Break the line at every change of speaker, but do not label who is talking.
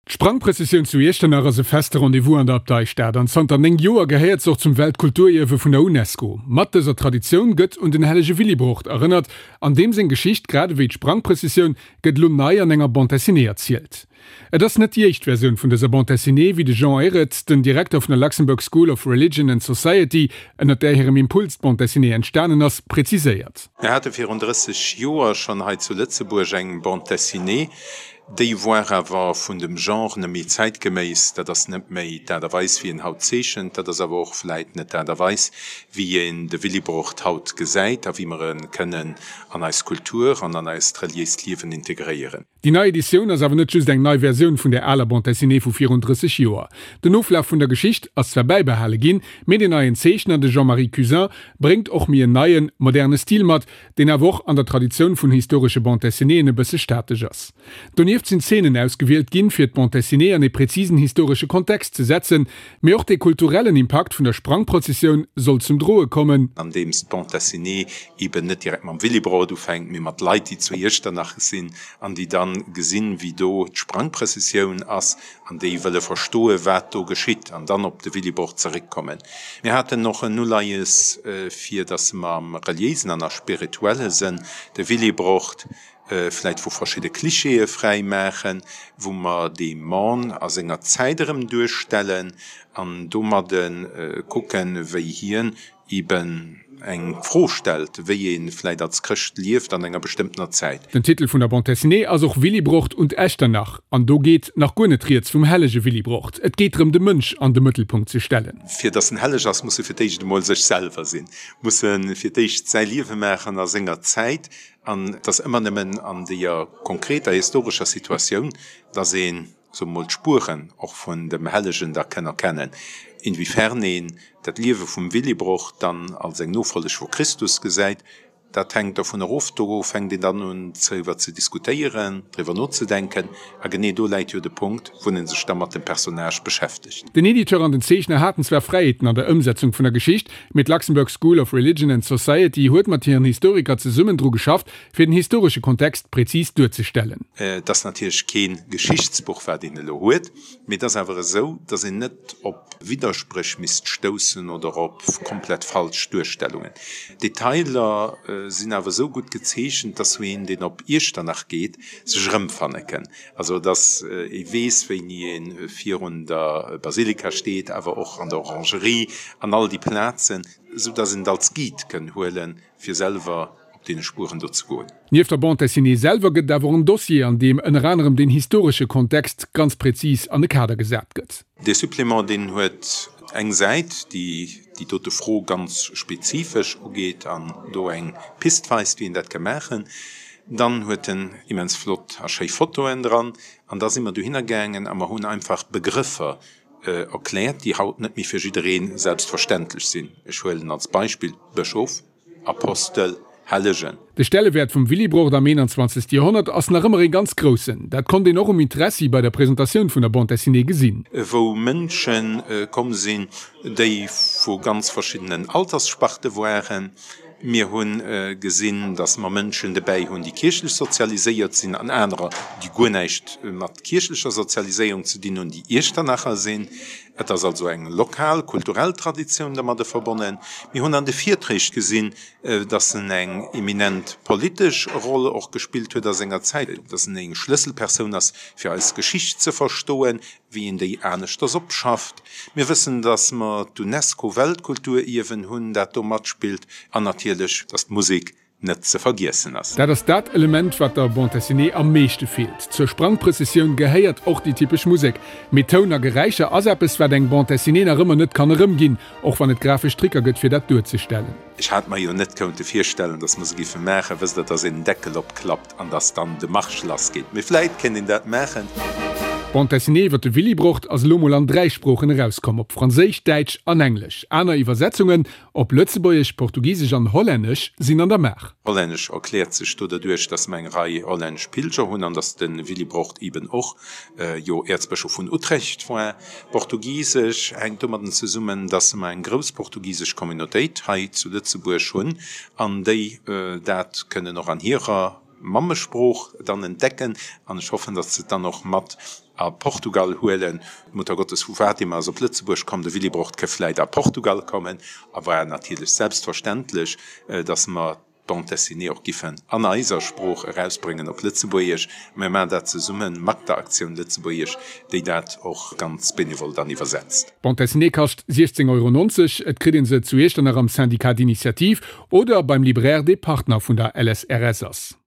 D'Sprangprëssessioun zu Iechternach ass e feste Rendez-vous an der Abteistad an zanter 9 Joer gehéiert se och zum Weltkulturierwe vun der UNESCO. Mat dëser Traditioun gëtt un den hellege Willibrord erënnert an deem seng Geschicht, grad ewéi d'Sprangprëssessioun, gëtt elo nei an enger Bande dessinée erzielt. Et ass net déi éischt Versioun vun dëser Bande dessinée, wéi de Jean Ehret, den Direkter vun der Luxembourg School of Religion and Society, ënnert där hirem Impuls d'Bande dessinée entstanen ass, preziséiert.
Mir hate virun 30 Joer schonn hei zu Lëtzebuerg eng Bande dessinée, Déi woar awer vun dem Genre net méi zäitgeméiss. Dat ass net méi d'Aart a Weis, wéi een haut zeechent. Dat ass awer och vläit net d'Aart a Weis, wéi een de Willibrord haut gesäit a wéi mer e kënnen an eis Kultur an an eist reliéist Liewen integréieren.
Déi nei Editioun ass awer net just eng nei Versioun vun der aler Bande dessinée vu virun 30 Joer. Den Oflaf vun der Geschicht ass zwar bäibehale ginn, mee den neien Zeechner, de Jean-Marie Cuzin, bréngt och méi en neien, moderne Stil mat, deen awer och an der Traditioun vun historesche Bande dessinéeën e bësse statesch ass. Donieft sinn Zeenen ausgewielt ginn, fir d'Bande dessinée an ee präzisen historesche Kontext ze setzen, mee och dee kulturellen Impakt vun der Sprangprozessioun soll zum Droe kommen.
Andeems d'Bande dessinée eben net direkt mam Willibrord ufänkt, mee mat Leit, déi zu Iechternach sinn an déi dann gesinn, wéi do d'Sprangprëssessioun ass an déi wëlle verstoe wat do geschitt an dann op de Willibrord zeréckkommen. Mir haten och en Uleies, fir datt mer am reliéisen an a spirituelle Sënn de Willibrord vläit vu verschidde Klischeeë fräi maachen, wou mer dee Mann a senger Zäit erëm duerstellen an domadde kucken, wéi hien eben eng Fro stellt, wéi ee vläit als Chrëscht lieft an enger bestëmmtener Zäit.
Den Titel vun der Bande dessinée ass och Willibrord und Echternach, an do geet nach guer net rieds vum hellege Willibrord. Et geet drëm de Mënsch an de Mëttelpunkt ze stellen.
Fir datt en helleg ass, muss e fir d'éischt emol sech selwer sinn, muss e fir d'éischt säi Liewe maachen a senger Zäit, an et ass ëmmer nëmmen an deeër konkreter historescher Situatioun, datt een soe mer mol, d'Spueren och vun dem Hellegen da kënn erkennen. Inwiefern een dat Liewe vum Willibrord dann als eng Nofolleg vu Christus gesäit, dat hänkt dovun erof. Do fänkt een dann un driwwer ze diskutéieren, driwwer nozedenken, a genee do läit jo de Punkt, wou een sech da mat dem Personnage beschäftegt.
Den Editeur an den Zeechner haten zwar Fräiheeten an der Ëmsetzung vun der Geschicht, mee d'Luxembourg School of Religion and Society huet mat hiren Historiker zesummen dru geschafft, fir den historesche Kontext präzis duerzestellen.
Et ass natierlech kee Geschichtsbuch, wat een elo huet, mee et ass awer esou, datt een net op Widderspréch misst stoussen oder op komplett falsch Duerstellungen. D'Detailer sinn awer esou gutt gezeechent, datt een, deen op Iechternach geet, sech erëmfanne kënn. Also datt ee weess, wéini ee virun der Basilika steet, awer och an der Orangerie an all déi Plazen, esou datt een et als Guide kënn huelen, fir selwer op deene Spueren do ze goen.
Nieft der Bande dessinée selwer gëtt et awer och en Dossier, an deem ënner anerem den historesche Kontext ganz präzis an e Kader gesat gëtt.
Dee Supplément, deen huet eng Säit, déi déi dote Fro ganz spezifesch ugeet an do eng Pist weist, wéi een dat ka maachen. Dann huet en immens flott a schéi Fotoen dran. An da si mer dohinner gaangen a mer hunn einfach Begrëffer erkläert, déi haut net méi fir jidderee selbstverständlech sinn. Ech huelen als Beispill Bëschof. Apostel, Hellegen.
De Stellewäert vum Willibrord am 21. Joerhonnert ass nach ëmmer ee ganz groussen. Dat konnt een och um Interessi bei der Presentatioun vun der Bande dessinée gesinn.
Wou Mënsche komm sinn, déi vu ganz verschiddenen Alterssparte waren. Mir hu gesinn, datt mer Mënschen dobäi hunn, déi kierchlech sozialiséiert sinn, an anerer, déi guer näischt mat kierchlecher Sozialiséierung ze dinn hunn, déi Iechternacher sinn. Et ass also eng lokal kulturell Traditioun dermadde verbonnen. Mir hunn an de Virträg gesinn, dass en eng eminent politesch Roll och gespillt huet a senger Zäit, dass en eng Schlësselpersoun ass, fir eis Geschicht ze verstoen, wéi een déi aneschters opschafft. Mir wëssen, dass mer d'UNESCO-Weltkulturierwen hunn, dat do matspillt, an natierlech, dass d'Musek net ze vergiessen ass.
Dat ass dat Element, wat der Bande dessinée am meeschte feelt. Zur Sprangprëssessioun gehéiert och déi typesch Musek. Mee Toun a Geräischer ass eppes, wat eng Bande dessinée nach ëmmer net kann erëmginn, och wann et grafesch Tricker gëtt, fir dat duerzestellen.
Ech hat mer jo net kounte virstellen, dass mer se giffe maachen. Wësst Der, dass een den Deckel opklappt an dass dann de Marsch lassgeet. Mee vläit kéint een dat maachen.
D'Bande dessinée iwwer de Willibrord ass elo mol an 3 Sproochen erauskomm, op Franséisch, Däitsch an Englesch. Aner Iwwersetzungen Op Lëtzebuergesch, Portugisesch an Hollännesch sinn an der Maach.
Hollännesch erkläert sech do derduerch, dass mer eng Rei hollännesch Pilger hunn an dass de Willibrord eben och jo Äerzbëschof vun Utrecht war. Portugisesch hänkt domadden zesummen, dass mer eng grouss portugisesch Communautéit hei zu Lëtzebuerg hunn an déi dat kënnen och an hirer. Mammesprooch dann entdecken an ech hoffen, datt se et dann och mat a Portugal huelen. D'Muttergottes vu Fatima ass op Lëtzebuerg komm, de Willibrord ke vläit a Portugal kommen a war natierlech selbstverständlech, datt mer d'Bande dessinée och giffen an eiser Sprooch erausbréngen op Lëtzebuergesch. Mir maachen dat zesumme mat der Aktioun Lëtzebuergesch, déi dat och ganz benevol dann iwwersetzt.
D'Bande dessinée kascht 16,90 Euro. Et kritt een se zu Iechternach am Syndicat d'Initiative oder beim Libraire, dee Partner vun der LSRS ass.